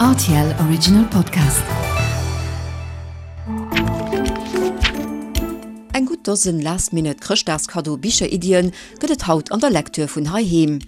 Rtl Original Podcast. Eng gutt Dosen Last-Minute Chrëschtdagskaddo Bicheriddien gëtt et haut an der Lecture vun heiheem.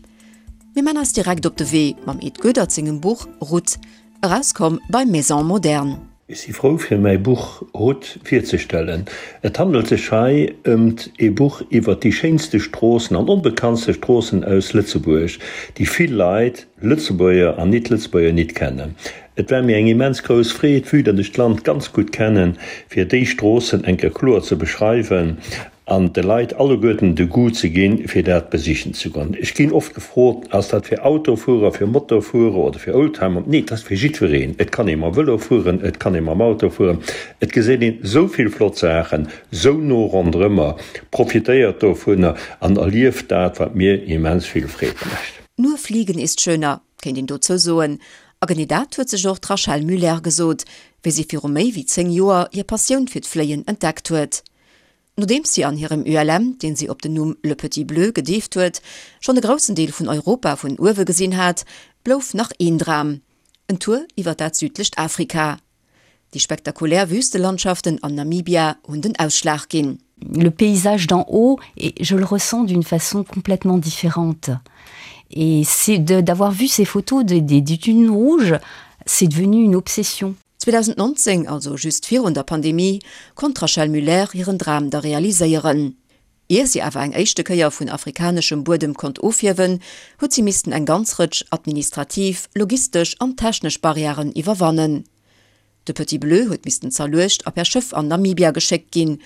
Mir man eis direkt op de Wee mam Ed Goedert sengem Buch Ruth, erauskomm bei Maison Moderne. Ech si frou fir mäi Buch Ruth virzestellen. Et handelt sech hei ëmt ee Buch iwwert déi schéinste Stroossen an onbekanntste Stroossen aus Lëtzebuerg, déi vill Leit, Lëtzebuerger an Nit-Lëtzebuerger, nit kennen. Et war mir eng immens grouss Freed, vue datt ech d'Land ganz gutt kennen, fir déi Stroossen eng Kéier kloer ze beschreiwen an de Leit alleguerten de Goût ze ginn, fir dat besichen ze goen. Ech ginn oft gefrot, Ass dat fir Autofuerer, fir Motofuerer oder fir Oldtimer? Nee, et ass fir jiddwereen. Et kann ee mam Vëlo fueren, et kann ee mam Auto fueren. Et geséit een esou vill flott Saachen, esou no ronderëmmer. Profitéiert dovunner an erlieft dat, wat mir immens vill Freed mécht. Nur fliegen ist schöner, kéint een dozou soen. A genee dat huet sech och d'Rachel Muller gesot, wéi si viru méi wéi 10 Joer hir Passioun fir d'Fléien entdeckt huet. Nodeems si an hirem ULM, deen si op den Numm Le Petit Bleu gedeeft huet, schonn e groussen Deel vun Europa vun uewe gesinn hat, blouf nach een Dram, en Tour iwwer dat südlecht Afrika. Déi spektakulär Wüstelandschaften an Namibia hunn den Ausschlag ginn. Le paysage d'en haut, je le ressens d'une façon complètement différente. Et c'est d'avoir vu ces photos des, des, des dunes rouges, c'est devenu une obsession. 2019, also just virun der Pandemie, konnt d'Rachel Muller hiren Dram da realiséieren. Ier si awer eng éischte Kéier vun afrikaneschem Buedem konnt ofhiewen, huet si missten eng ganz Rëtsch administrativ, logistesch an technesch Barrièren iwwerwannen. De Petit Bleu huet missten zerluecht a per Schëff an Namibia geschéckt ginn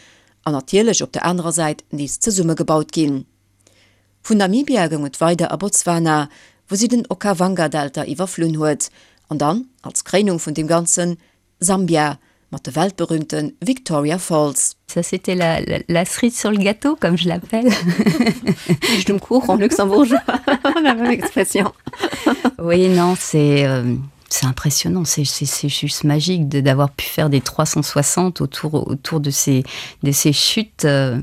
an natierlech op der anerer Säit nees zesummegebaut ginn. Vun Namibia goung et weider a Botswana, wou si den Okavango-Delta iwwerflunn huet, an dann, als Kréinung vun deem Ganzen, Sambia mat de weltberühmte Victoria Falls. Ça c'était la, la, la cerise sur le gâteau, comme je l'appelle. Quiche um Kuch en luxembourgeois, la même expression. Oui, non, c'est euh, c'est impressionnant, c'est juste magique d'avoir pu faire des 360 autour, autour de, ces, de ces chutes. Euh,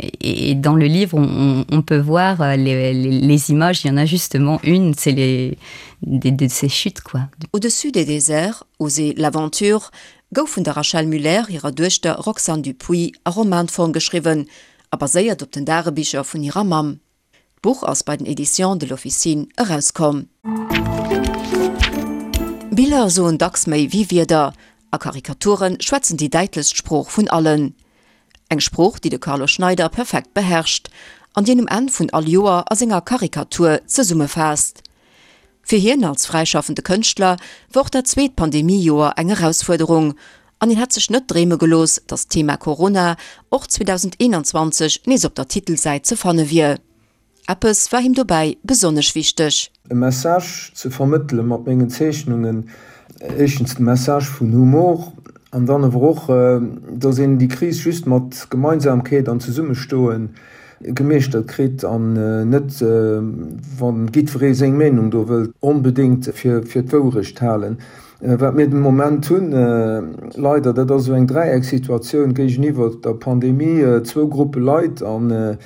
Et, et dans le livre, on, on peut voir euh, les, les, les images, il y en a justement une, c'est les de, de ces chutes quoi. Au-dessus des déserts, Oser l'aventure gouf vun der Rachel Muller hirer Duechter Roxane Dupuy a Romanform geschriwwen a baséiert op den Dagebicher vun hirer Mamm. D'Buch ass bei den Editions de l'Officine erauskomm. Biller soen dacks méi wéi Wierder, a Karikature schwätzen déi däitlechst Sprooch vun allen. Eng Sprooch, déi de Carlo Schneider perfekt beherrscht an déi en um Enn vun all Joer a senger Karikatur zesummefaasst. Fir hien als fräischaffende Kënschtler war och dat zweet Pandemie-Joer eng Erausfuerderung an hien hätt sech net dreeme gelooss, datt d'Thema Corona och 2021 nees op der Titelsäit ze fanne wier. Eppes war him dobäi besonnesch wichteg. E Message ze vermëttele mat mengen Zeechnungen, éischtens de Message vun Humor an dann awer och, datt een déi Kris just mat Gemeinsamkeet an Zesummestoe gemeeschtert kritt an net, wa jiddweree seng Meenung do wëllt onbedéngt fir d'Wourecht halen. Wat mir den Moment hunn, leider, dat ass esou eng Dräiecksituatioun géigeniwwer der Pandemie, zwou Gruppe Leit. An,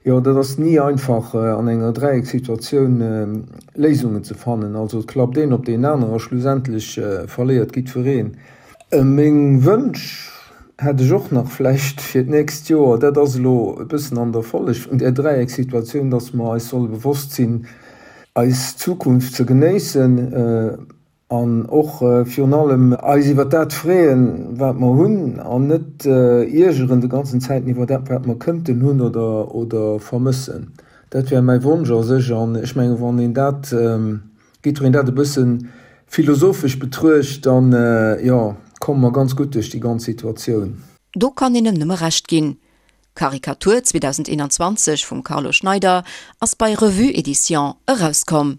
jo, dat ass ni einfach an enger Dräiecksituatioun Léisungen ze fannen. Also et klappt een op deen aneren a schlussendlech verléiert jiddwereen. Meng Wënsch hätt ech och nach vläicht fir d'nächst Joer, dat ass elo e bëssen an der Folleg vun där Dräiecksituatioun, dass mer eis solle bewosst sinn, eis Zukunft ze genéissen, An och virun allem eis iwwer dat freeën, wat mer hunn, an net iergeren de ganzen Zäiten iwwer dat, wat mer kënnten hunn oder vermëssen. Dat wär mäi Wonsch a sech. An ech mengen, wann een dat, jiddwereen dat e bësse philosophesch betruecht, dann, jo, komme mer ganz gutt duerch déi ganz Situatioun. Do kann een em nëmme Recht ginn. Karikatur 2021 vum Carlo Schneider ass bei Revue Edition erauskomm.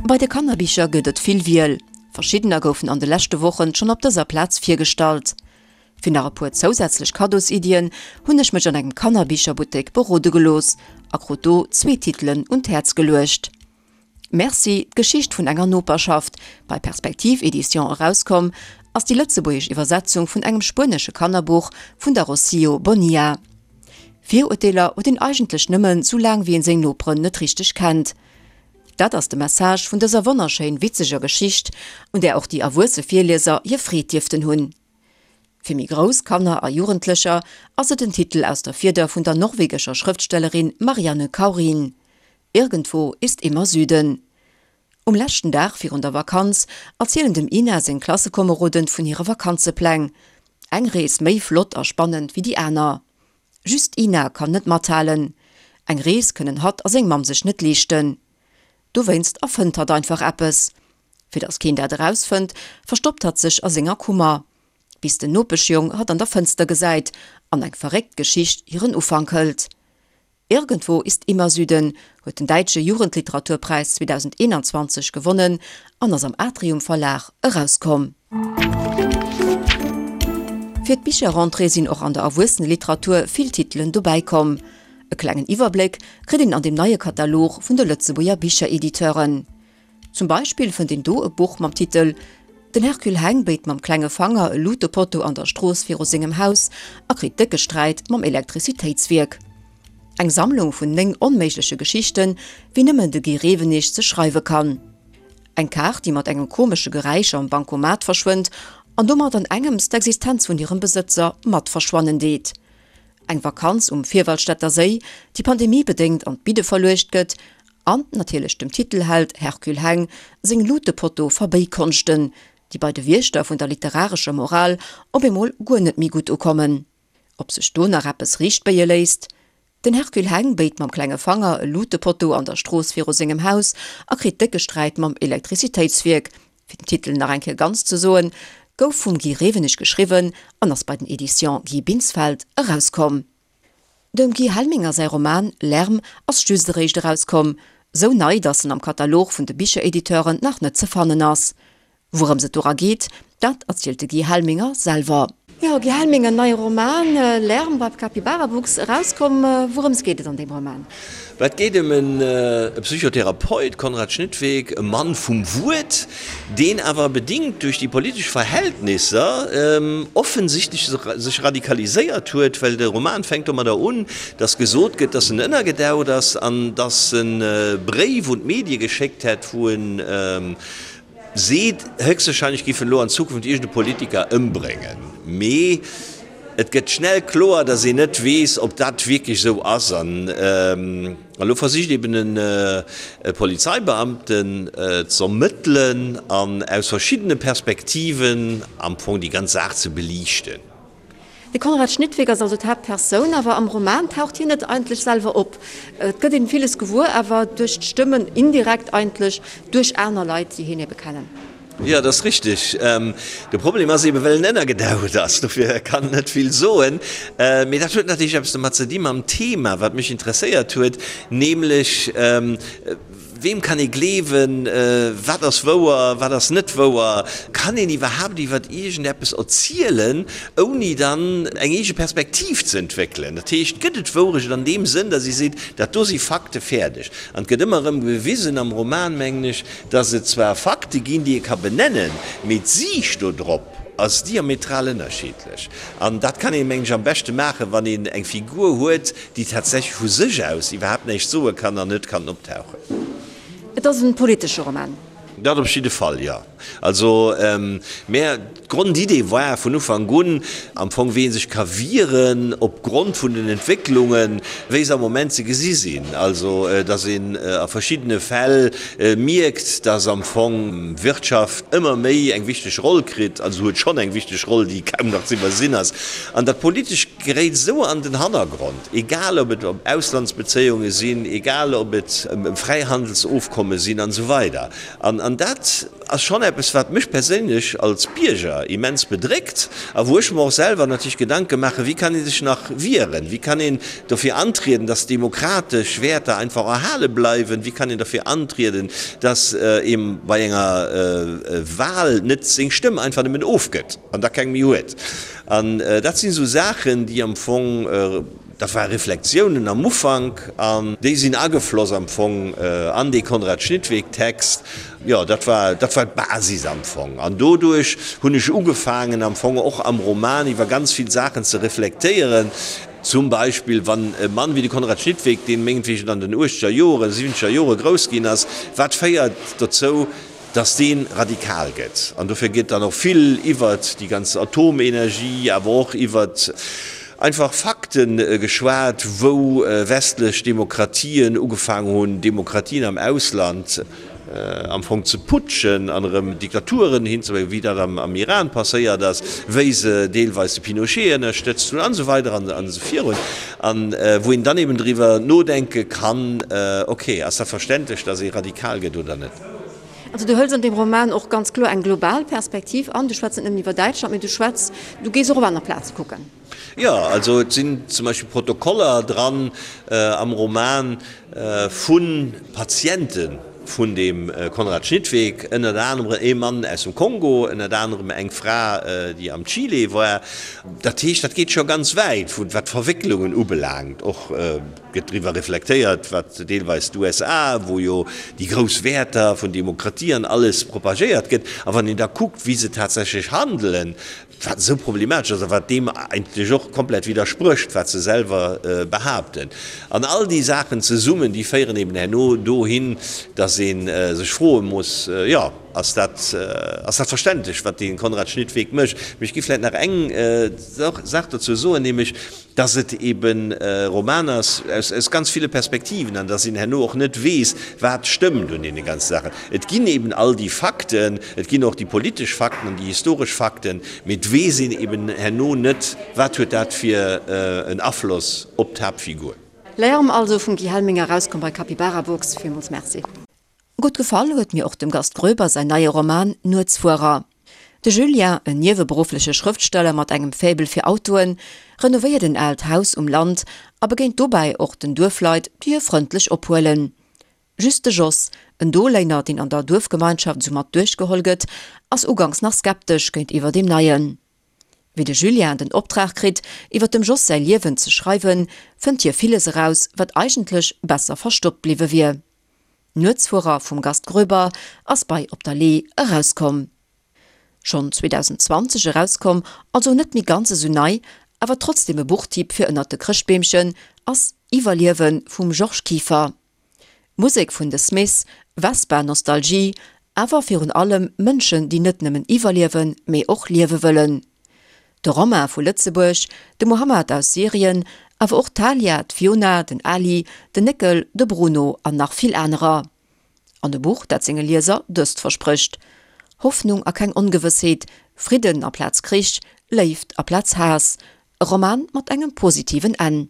Bei de Kannerbicher gëtt et vill Wiel. Verschiddener goufen an de leschte Wochen schonn op dëser Plaz virgestallt. Fir nach e puer zousätzlech Kaddosiddien hunn ech mech an engem Kannerbicherbuttek berode gelooss a krut do zwee Titelen un d'Häerz geluecht. Merci, d'Geschicht vun enger Noperschaft, bei Perspektiv Edition erauskomm, ass déi lëtzebuergesch Iwwersetzung vun engem spuenesche Kannerbuch vun der Rocío Bonilla. Virurteeler huet een eigentlech nëmmen, sou laang wéi een seng Noperen net richteg kennt. Dat ass de Message vun dëser wonnerschéin witzeger Geschicht, un där och déi erwuesse Virlieser hir Freed dierften hunn. Fir méi grouss Kanner a Jugendlecher ass et en Titel aus der Fieder vun der norwegescher Schrëftstellerin Marianne Kaurin, Irgendwo ist immer Süden. Um leschten Dag virun der Vakanz erzielen dem Ina seng Klassekomeroden vun hire Vakanzepläng. Eng Rees méi flott a spannend wéi déi aner. Just d'Ina kann net mathalen. Eng Rees kënnen hatt a seng Mamm sech net leeschten. Dowéinst erfënnt hatt einfach eppes. Fir datt keen dat erausfënnt, verstoppt hatt sech a senger Kummer. Bis den Nopeschjong hatt an der Fënster gesäit an eng verréckt Geschicht hiren Ufank hëlt. Irgendwo ist immer Süden huet den Däitsche Jugendliteraturpräis 2021 gewonnen an ass am Atrium Verlag erauskomm. Fir d'Bicherrentrée sinn och an der Erwuesseneliteratur vill Titelen dobäi komm. E klengen Iwwerbléck kritt een an dem neie Katalog vun de Lëtzebuerger Bicherediteuren. Zum Beispill fënnt een do e Buch mam Titel Den Hercule Heng béit mam klenge Fanger e Lutepotto an der Strooss viru sengem Haus a kritt décke Sträit mam Elektrizitéitswierk. Eng Sammlung vun 9 onméigleche Geschichten, wéi nëmmen de Guy Rewenig se schreiwe kann. Eng Kaart, déi mat engem komesche Geräisch am Bancomat verschwënnt an domat an engems d'Existenz vun hirem Besëtzer mat verschwannen deet. Eng Vakanz um Vierwaldstätter Séi, déi pandemiebedéngt an d'Bidde verluecht gëtt An natierlech dem Titelheld Hercule Heng seng Lutepotto-Verbéikonschten, déi bei de Wiechter vun der literarescher Moral op eemol guer net méi gutt ukommen. Ob sech do nach eppes riichtbéie léisst? Den Hercule Heng béit mam klenge Fanger e Lutepotto an der Strooss viru sengem Haus a kritt décke Sträit mam Elektrizitéitswierk, fir den Titel nach eng Kéier ganz ze soen, gouf vum Guy Rewenig geschriwwen an ass bei den Editions Guy Binsfeld erauskomm. Dem Guy Helminger säi Roman Lärm ass just eréischt erauskomm, sou nei, datt en am Katalog vun de Bicherediteuren nach net ze fannen ass. Wourëms et dora geet, dat erzielt de Guy Helminger selwer. Jo, Guy Helminger, neie Roman Lärm bei Capybarabooks erauskomm. Wourëms geet et an deem Roman? Et geet ëm e Psychotherapeut, Konrad Schnittweg, e Mann vum Wuert, deen awer bedingt duerch déi politesch Verhältnisser offensichtlech sech radikaliséiert huet, well de Roman fänkt domadder un, datt gesot gëtt, datt en ënnergedaucht ass an datt en e Bréif un d'Medie geschéckt hätt, wou en Seet, héchstwahrscheinlech géif en elo an Zukunft iergend e Politiker ëmbréngen. Mee et gëtt schnell kloer, datt een net weess, ob dat wierklech esou ass. An elo versicht eben e Polizeibeamten z'ermëttelen an aus verschiddene Perspektiven am Fong déi ganz Saach ze beliichten. De Konrad Schnittweg ass also d'Haaptpersoun, awer am Roman taucht hien net eigentlech selwer op. Et gëtt een villes gewuer, awer duerch d'Stëmmen, indirekt eigentlech duerch aner Leit, déi hien ebe kennen. Jo, dat ass richteg. De Problem ass eben, well en ënnergedaucht ass, dofir kann en net vill soen. Mee dat huet natierlech eppes domat ze di mam Thema, wat mech interesséiert huet, nämlech, Weem kann ee gleewen? Wat ass wouer, wat ass net wouer? Kann een iwwerhaapt iwwer iergendeppes erzielen, ouni dann eng eege Perspektiv ze entwéckelen? Dat heescht, gëtt et Wourecht an deem Sënn, datt ee seet, dat do si Fakte, fäerdeg? An et gëtt ëmmer erëm bewisen am Roman, mengen ech, datt et zwar Fakte ginn, déi ee ka benennen, mee d'Siicht do drop ass diametral ënnerschiddlech. An dat kann een, mengen ech, am beschte maachen, wann een eng Figur huet, déi tatsächlech vu sech aus iwwerhaapt näischt soe kann an net kann optauchen. Et ass e politesche Roman. Dat op jidde Fall, jo. Also, mä d'Grondidee war vun Ufank un am Fong, wéi ee sech ka wieren opgrond vun den Entwécklungen, wéi se am Moment ze gesi sinn. Also, datt een a verschiddene Fäll mierkt, datt am Fong d'Wirtschaft ëmmer méi eng wichteg Roll kritt, also huet schonn eng wichteg Roll, déi kaum nach ze iwwersinn ass, an datt politesch geréit esou an den Hannergrond, egal ob et ëm Auslandsbezéiunge sinn, egal ob et ëm Fräihandelsofkomme sinn an esou weider. An dat ass schonn eppes, wat mech perséinlech als Bierger immens bedréckt a wou ech mer och selwer natierlech Gedanke maachen, wéi kann ee sech nach wieren, wéi kann een dofir antrieden, dass demokratesch Wäerter einfach erhale bleiwen, wéi kann een dofir antrieden, dass ee bei enger Wahl net seng Stëmm einfach nëmmen ofgëtt an da keng méi huet. An dat sinn esou Saachen, déi am Fong, dat ware Reflexiounen am Ufank an déi sinn agefloss am Fong an dee Konrad Schnittweg-Text. Jo, dat war, dat war d'Basis am Fong. An doduerch hunn ech ugefaangen am Fong och am Roman iwwer ganz vill Saachen ze reflektéieren. Zum Beispill wann e Mann wéi de Konrad Schnittweg, deen mengetwegen an den uechteger Joren, siwwenzeger Jore grouss ginn ass, wat féiert dozou, dass dee radikal gëtt. An dofir gëtt dann och vill iwwert déi ganz Atomenergie, awer och iwwert einfach Fakte geschwat, wou westlech Demokratien ugefaangen hunn, Demokratien am Ausland am Fong ze putschen an erëm Diktaturen hinzebréngen, wéi dat am Iran passéiert ass, wéi se deelweis de Pinochet ënnerstëtzt hunn an esou weider an esou virun. An wou een dann eben driwwer nodenke kann, okay, ass dat verständlech, dass ee radikal gëtt oder net? Also du hëls an deem Roman och ganz kloer eng global Perspektiv an. Du schwätz net nëmmen iwwer Däitschland, mee du schwätz, du gees och op aner Plaze kucken. Jo, also et sinn zum Beispill Protokoller dran am Roman vu Patiente vun deem Konrad Schnittweg, ënnert anerem ee Mann aus dem Kongo, ënnert anerem eng Fra, déi am Chile war. Dat heescht, dat geet scho ganz wäit, wat d'Verwécklungen ubelaangt, och. Gëtt driwwer reflektéiert, wat deelweis d'USA, wou jo déi grouss Wäerter vun Demokratie an alles propagéiert gëtt, a wann een da kuckt, wéi se tatsächlech handelen, wat esou problematesch ass a wat deem eigentlech och komplett widdersprécht, wat se selwer behaapten. An all déi Saachen zesummen, déi féieren eben herno dohin, datt ee sech froe muss, jo, ass dat, ass dat verständlech, wat dee Konrad Schnittweg mécht? Mee ech géif vläicht nach eng Saach dozou soen, nämlech, dass et eben e Roman ass aus ganz ville Perspektiven an dass een herno och net weess, wat stëmmt un deene ganze Saachen. Et ginn eben all déi Fakten, et ginn och déi politesch Fakten an déi historesch Fakten, mee et weess een eben herno net, wat huet dat fir en Afloss op d'Haaptfigur. Lärm also vum Guy Helminger, erauskomm bei Capybarabooks. Villmools Merci. Gutt gefall huet mir och dem Gast Groeber säin neie Roman Nuetsfuerer. De Julien, en nieweberuffleche Schrëftsteller mat engem Faible fir Autoen, renovéiert en aalt Haus um Land a begéint dobäi och den Duerfleit, déi hie frëndlech ophuelen. Just de Jos, en Doléiner, deen an der Duerfgemeinschaft esou mat duerchgeholl gëtt, ass uganks nach skeptesch géintiwwer deem Neien. Wéi de Julien den Optrag kritt, iwwer dem Jos säi Liewen ze schreiwen, fënnt hie villes eraus, wat eigentlech besser verstoppt bliwwe wier. Nuetsfuerer vum Gast Groeber ass bei Op der Lee erauskomm. Schonn 2020 erauskomm, also net méi ganz esou nei, awer trotzdem e Buchtipp fir ënnert de Chrëschtbeemchen ass Iwwerliewen vum Georges Kieffer. Musek vun The Smiths, Vespa Nostalgie, awer virun allem Mënschen déi net nëmmen iwwerliewen, mee och liewe wëllen. De Romain vu Lëtzebuerg, de Mohammad aus Syrien, awer och d'Talia, d'Fiona, den Ali, den Néckel, de Bruno an nach vill anerer. An e Buch, dat senge Lieser dëst versprécht, Hoffnung a keng Ongewëssheet, Fridden aplaz Krich, Léift aplaz Haass. E Roman mat engem positiven Enn.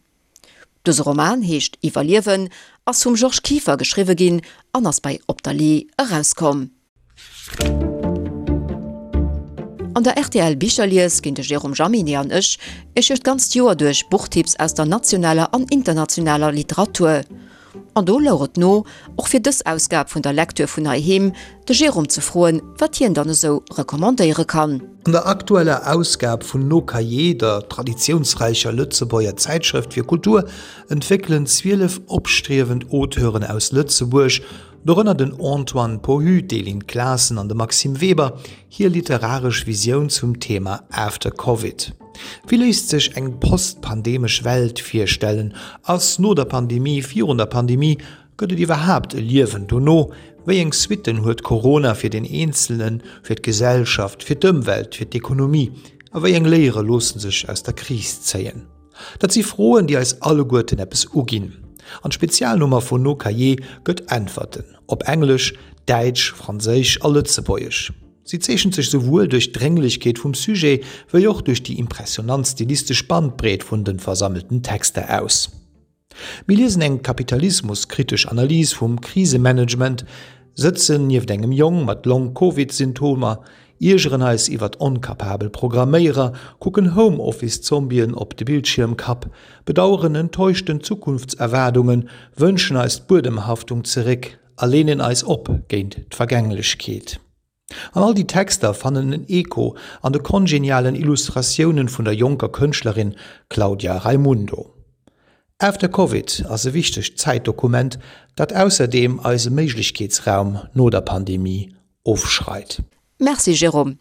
Dëse Roman heescht Iwwerliewen, ass vum Georges Kieffer geschriwwe ginn an ass bei Op der Lee erauskomm. An der rtl Bicherlies ginn de Jérôme Jaminet an ech Iech duerch d'ganzt Joer duerch Buchtipps aus der nationaler an internationaler Literatur. An do louch et no, och fir dës Ausgab vun der Lektür vun heiheem, de Jérôme ze froen, wat hien dann esou recommandéiere kann. An der aktueller Ausgab vun Nos Cahiers, der traditiounsräicher Lëtzebuerger Zäitschrëft fir Kultur, entwéckelen 12 opstriewend Auteuren aus Lëtzebuerg, dorënner den Antoine Pohu, d'Elin Claassen an de Maxime Weber, hir literaresch Visioun zum Thema After Covid. Wéi léisst sech eng post-pandemesch Welt virstellen? Ass no der Pandemie virun der Pandemie? Gëtt et iwwerhaapt e Liewen dono? Wéi eng Suitten huet Corona fir den Eenzelnen, fir d'Gesellschaft, fir d'Ëmwelt, fir d'Ekonomie? A wéi eng Léiere loosse sech aus der Kris zéien? Dat si Froen, déi eis alleguerten eppes uginn. An d'Spezialnummer vun No Cahiers gëtt Äntwerten, op Englesch, Däitsch, Franséisch a Lëtzebuergesch. Si zeechent sech souwuel duerch d'Drénglechkeet vum Sujet, wéi och duerch déi impressionant stilistesch Bandbreet vun de versammelten Texter aus. Mir liesen eng kapitalismuskritesch Analys vum Krisemanagement, sëtzen nieft engem Jong mat Long-Covid-Symptomer, iergeren eis iwwert onkapabel Programméierer, kucken Home-Office-Zombien op de Bildschiermkapp, bedaueren enttäuschten Zukunftserwaardungen, wënschen eis d'Buedemhaftung zeréck a leenen eis op géint d'Vergänglechkeet. An all déi Texter fannen en Echo an de kongenialen Illustratiounen vun der jonker Kënschtlerin Claudia Raimundo. After Covid ass e wichtegt Zäitdokument, dat ausserdeem eise Méiglechkeetsraum no der Pandemie ofschreit. Merci Jérôme.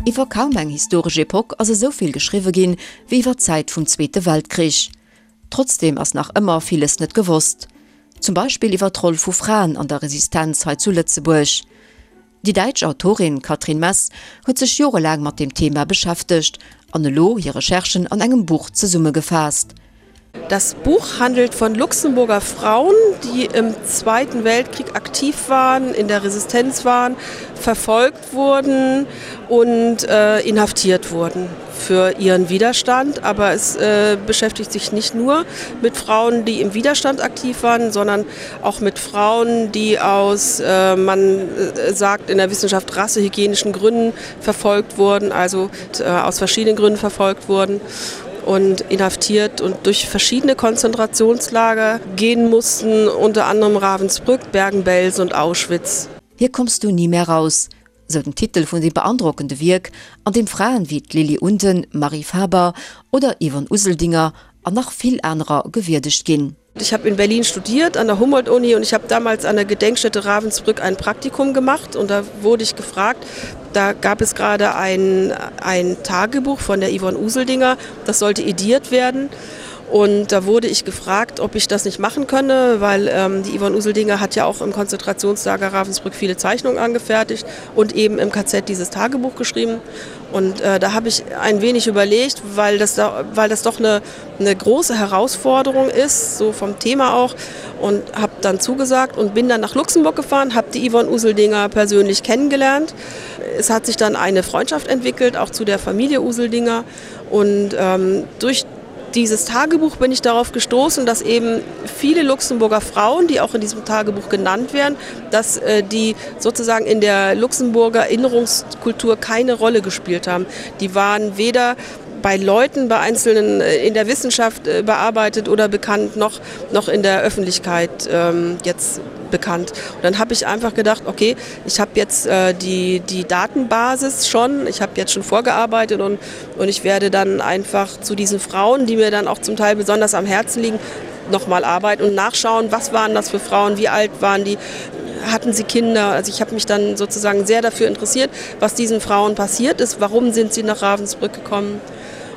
Iwwer kaum eng historesch Epoch ass esou vill geschriwwe ginn, wéi iwwer d'Zäit vum Zweete Weltkrich. Trotzdeem ass nach ëmmer villes net gewosst. Zum Beispill iwwer d'Roll vu Fraen an der Resistenz hei zu Lëtzebuerg. Déi däitsch Autorin Katrin Mess huet sech jorelaang mat dem Thema beschäftegt an elo hir Recherchen an engem Buch zesummegefaasst. Das Buch handelt von Luxemburger Frauen, die im Zweiten Weltkrieg aktiv waren, in der Resistenz waren, verfolgt wurden und äh, inhaftiert wurden für ihren Widerstand. Aber es äh, beschäftigt sich nicht nur mit Frauen, die im Widerstand aktiv waren, sondern auch mit Frauen, die aus äh, man äh, sagt in der Wissenschaft rassehygienischen Gründen verfolgt wurden, also äh, aus verschiedenen Gründen verfolgt wurden und inhaftiert und durch verschiedene Konzentrationslager gehen mussten, unter anderem Ravensbrück, Bergen-Belsen und Auschwitz. Hier kommst du nie mehr raus, sou den Titel vun deem beandrockende Wierk, an deem Fraen wéi d'Lily Unden, Marie Faber oder Yvonne Useldinger an nach vill anerer gewierdegt ginn. Ich habe in Berlin studiert an der Humboldt-Uni und ich habe damals an der Gedenkstätte Ravensbrück ein Praktikum gemacht und da wurde ich gefragt, da gab es gerade ein, ein Tagebuch von der Yvonne Useldinger, das sollte ediert werden. Und da wurde ich gefragt, ob ich das nicht machen könne, weil ähm, die Yvonne Useldinger hat ja auch im Konzentrationslager Ravensbrück viele Zeichnungen angefertigt und eben im KZ dieses Tagebuch geschrieben. Und äh, da habe ich ein wenig überlegt, weil das, da, weil das doch eine, eine große Herausforderung ist, so vom Thema auch und habe dann zugesagt und bin dann nach Luxemburg gefahren, habe die Yvonne Useldinger persönlich kennengelernt. Es hat sich dann eine Freundschaft entwickelt, auch zu der Familie Useldinger und ähm, durch dieses Tagebuch bin ich darauf gestoßen, dass eben viele Luxemburger Frauen, die auch in diesem Tagebuch genannt werden, dass äh, die sozusagen in der Luxemburger Erinnerungskultur keine Rolle gespielt haben. Die waren weder bei Leuten bei einzelnen äh, in der Wissenschaft äh, bearbeitet oder bekannt noch noch in der Öffentlichkeit ähm, jetzt bekannt. Und dann habe ich einfach gedacht, okay, ich habe jetzt äh, die, die Datenbasis schon, ich habe jetzt schon vorgearbeitet und, und ich werde dann einfach zu diesen Frauen, die mir dann auch zum Teil besonders am Herzen liegen, noch mal arbeiten und nachschauen, was waren das für Frauen, wie alt waren die, hatten sie Kinder. Also ich habe mich dann sozusagen sehr dafür interessiert, was diesen Frauen passiert ist, warum sind sie nach Ravensbrück gekommen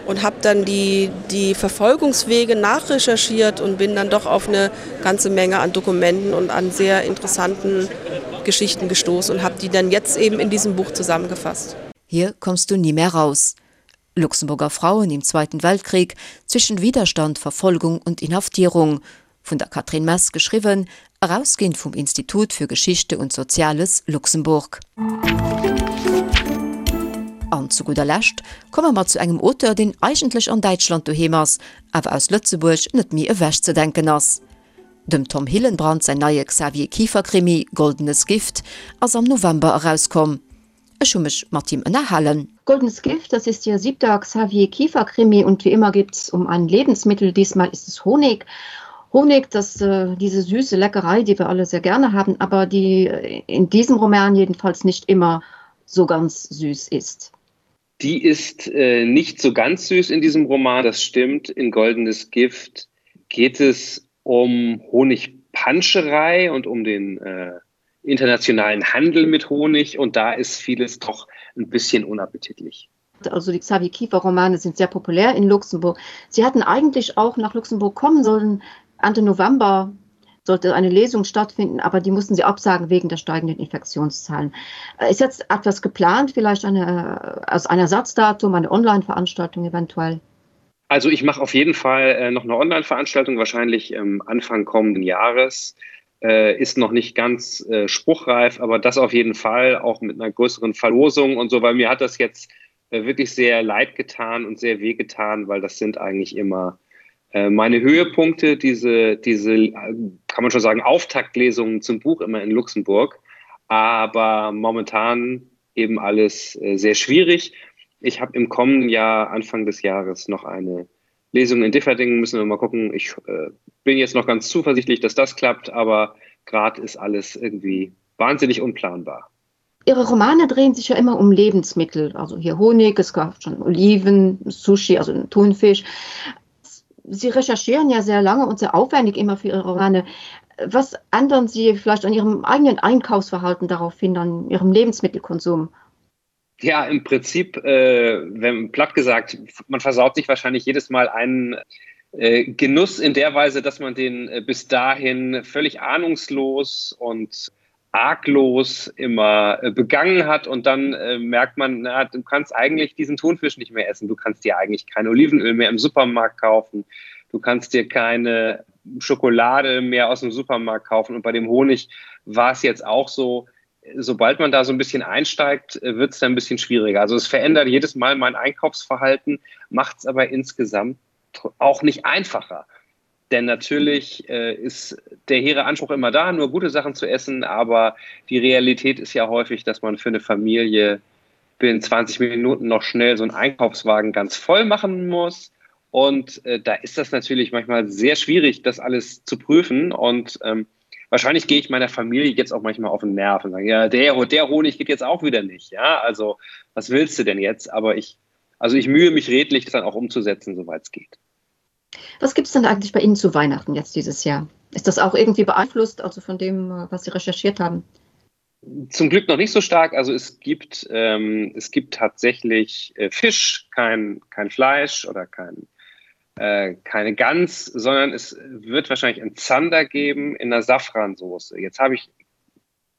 und habe dann die, die Verfolgungswege nachrecherchiert und bin dann doch auf eine ganze Menge an Dokumenten und an sehr interessanten Geschichten gestoßen und habe die dann jetzt eben in diesem Buch zusammengefasst. Hier kommst du nie mehr raus. Luxemburger Frauen im Zweiten Weltkrieg zwischen Widerstand, Verfolgung und Inhaftierung vun der Catherine Mess geschriwwen, erausginn vum Institut für Geschichte und Soziales Luxemburg. An zu gudder Lescht komme mer zu engem Auteur, deen eigentlech an Däitschland doheem ass, awer aus Lëtzebuerg net méi ewechzedenken ass. Dem Tom Hillenbrand säin neie Xavier Kieffer-Krimi Goldenes Gift ass am November erauskomm. Ech hu mech mat him ënnerhalen. Goldenes Gift, das ist Ihr siebter Xavier Kiefer Krimi und wie immer geht es um ein Lebensmittel, diesmal ist es Honig. Honig, das äh, diese süße Leckerei, die wir alle sehr gerne haben, aber die äh, in diesem Roman jedenfalls nicht immer so ganz süß ist. Die ist äh, nicht so ganz süß in diesem Roman, das stimmt. In Goldenes Gift geht es um Honigpanscherei und um den äh, internationalen Handel mit Honig und da ist vieles doch ein bisschen unappetitlich. Also die Xavier Kiefer Romane sind sehr populär in Luxemburg. Sie hatten eigentlich auch nach Luxemburg kommen sollen. Ende November sollte eine Lesung stattfinden, aber die mussten sie absagen wegen der steigenden Infektionszahlen. Äh, ist jetzt etwas geplant, vielleicht eine, äh, aus einem Ersatzdatum, eine Online-Veranstaltung eventuell? Also ich mache auf jeden Fall äh, noch eine Online-Veranstaltung, wahrscheinlich ähm, Anfang kommenden Jahres. Äh, ist noch nicht ganz äh, spruchreif, aber das auf jeden Fall auch mit einer größeren Verlosung und so, weil mir hat das jetzt äh, wirklich sehr leid getan und sehr weh getan, weil das sind eigentlich immer äh, meine Höhepunkte, diese, diese, äh, kann man schon sagen, Auftaktlesungen zum Buch immer in Luxemburg. Aber momentan eben alles äh, sehr schwierig. Ich habe im kommenden Jahr, Anfang des Jahres, noch eine Lesung in Differdingen. Müssen wir mal gucken. Ich äh, bin jetzt noch ganz zuversichtlich, dass das klappt, aber gerade ist alles irgendwie wahnsinnig unplanbar. Ihre Romane drehen sich ja immer um Lebensmittel, also hier Honig, es gab schon Oliven, Sushi, also Thunfisch. Sie recherchieren ja sehr lange und sehr aufwendig immer für Ihre Romane. Was ändern Sie vielleicht an Ihrem eigenen Einkaufsverhalten darauf hin, an Ihrem Lebensmittelkonsum? Ja, im Prinzip, äh, wenn platt gesagt, man versaut sich wahrscheinlich jedes Mal einen äh, Genuss in der Weise, dass man den äh, bis dahin völlig ahnungslos und arglos immer äh, begangen hat und dann äh, merkt man, na, du kannst eigentlich diesen Thunfisch nicht mehr essen, du kannst dir eigentlich kein Olivenöl mehr im Supermarkt kaufen, du kannst dir keine Schokolade mehr aus dem Supermarkt kaufen und bei dem Honig war es jetzt auch so, sobald man da so ein bisschen einsteigt, äh, wird es dann ein bisschen schwieriger. Also es verändert jedes Mal mein Einkaufsverhalten, macht es aber insgesamt auch nicht einfacher. Denn natürlich äh, ist der hehre Anspruch immer da, nur gute Sachen zu essen, aber die Realität ist ja häufig, dass man für eine Familie binnen 20 Minuten noch schnell so einen Einkaufswagen ganz voll machen muss. Und äh, da ist das natürlich manchmal sehr schwierig, das alles zu prüfen. Und ähm, wahrscheinlich gehe ich meiner Familie jetzt auch manchmal auf den Nerv und sage, ja, der, der Honig geht jetzt auch wieder nicht. Ja, also was willst du denn jetzt? Aber ich, also ich mühe mich redlich, das dann auch umzusetzen, soweit es geht. Was gibt es denn eigentlich bei Ihnen zu Weihnachten jetzt dieses Jahr? Ist das auch irgendwie beeinflusst, also von dem, äh, was Sie recherchiert haben? Zum Glück noch nicht so stark. Also es gibt, ähm, es gibt tatsächlich äh, Fisch, kein, kein Fleisch oder kein, äh, keine Gans, sondern es wird wahrscheinlich einen Zander geben in der Safransoße. Jetzt habe ich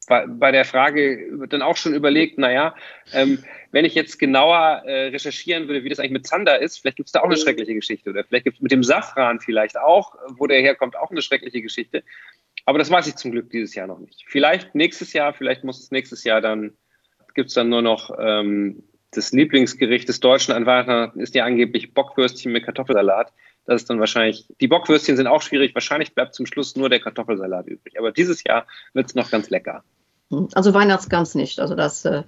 bei der Frage dann auch schon überlegt, naja, ähm, wenn ich jetzt genauer äh, recherchieren würde, wie das eigentlich mit Zander ist, vielleicht gibt es da auch eine schreckliche Geschichte oder vielleicht gibt es mit dem Safran vielleicht auch, wo der herkommt, auch eine schreckliche Geschichte. Aber das weiß ich zum Glück dieses Jahr noch nicht. Vielleicht nächstes Jahr, vielleicht muss es nächstes Jahr dann, gibt es dann nur noch ähm, das Lieblingsgericht des Deutschen an Weihnachten ist ja angeblich Bockwürstchen mit Kartoffelsalat. Das ist dann wahrscheinlich, die Bockwürstchen sind auch schwierig, wahrscheinlich bleibt zum Schluss nur der Kartoffelsalat übrig. Aber dieses Jahr wird es noch ganz lecker. Hm, also Weihnachtsgans nicht, also das äh,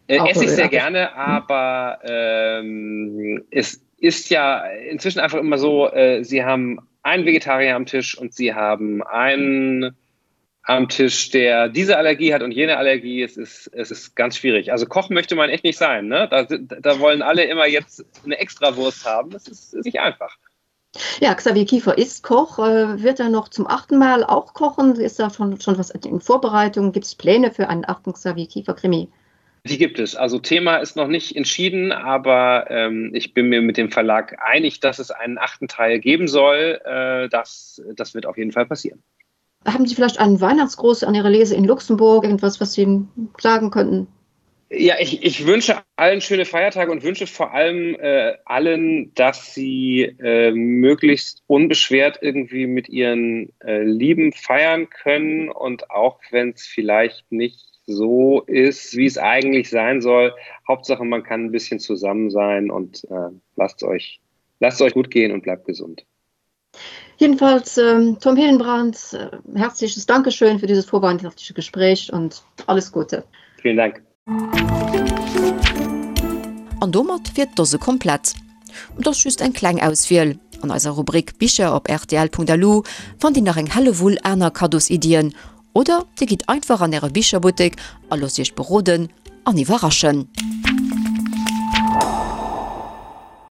äh, esse ich sehr gerne, aber ähm, es ist ja inzwischen einfach immer so, äh, Sie haben einen Vegetarier am Tisch und Sie haben einen am Tisch, der diese Allergie hat und jene Allergie. Es ist, es ist ganz schwierig. Also Koch möchte man echt nicht sein. Ne? Da, da wollen alle immer jetzt eine Extrawurst haben. Das ist, ist nicht einfach. Ja, Xavier Kiefer ist Koch. Äh, wird er noch zum achten Mal auch kochen? Ist da schon, schon was in Vorbereitung? Gibt es Pläne für einen achten Xavier Kiefer Krimi? Die gibt es. Also Thema ist noch nicht entschieden, aber ähm, ich bin mir mit dem Verlag einig, dass es einen achten Teil geben soll. Äh, das, das wird auf jeden Fall passieren. Haben Sie vielleicht einen Weihnachtsgruß an Ihre Lese in Luxemburg, irgendwas, was Sie sagen könnten? Ja, ich, ich wünsche allen schöne Feiertage und wünsche vor allem äh, allen, dass sie äh, möglichst unbeschwert irgendwie mit ihren äh, Lieben feiern können und auch wenn es vielleicht nicht so ist, wie es eigentlich sein soll. Hauptsache, man kann ein bisschen zusammen sein und äh, lasst euch, lasst euch gut gehen und bleibt gesund. Jedenfalls ähm, Tom Hillenbrand, äh, herzliches Dankeschön für dieses vorweihnachtliche Gespräch und alles Gute. Vielen Dank. An domat wier d'Dose komplett. Et ass just eng kleng Auswiel. An eiser Rubrik Bicher op rtl.lu fannt Dir nach eng Hellewull aner Kaddosiddien oder Dir gitt einfach an Äre Bicherbuttek a loosst Iech beroden an iwwerraschen.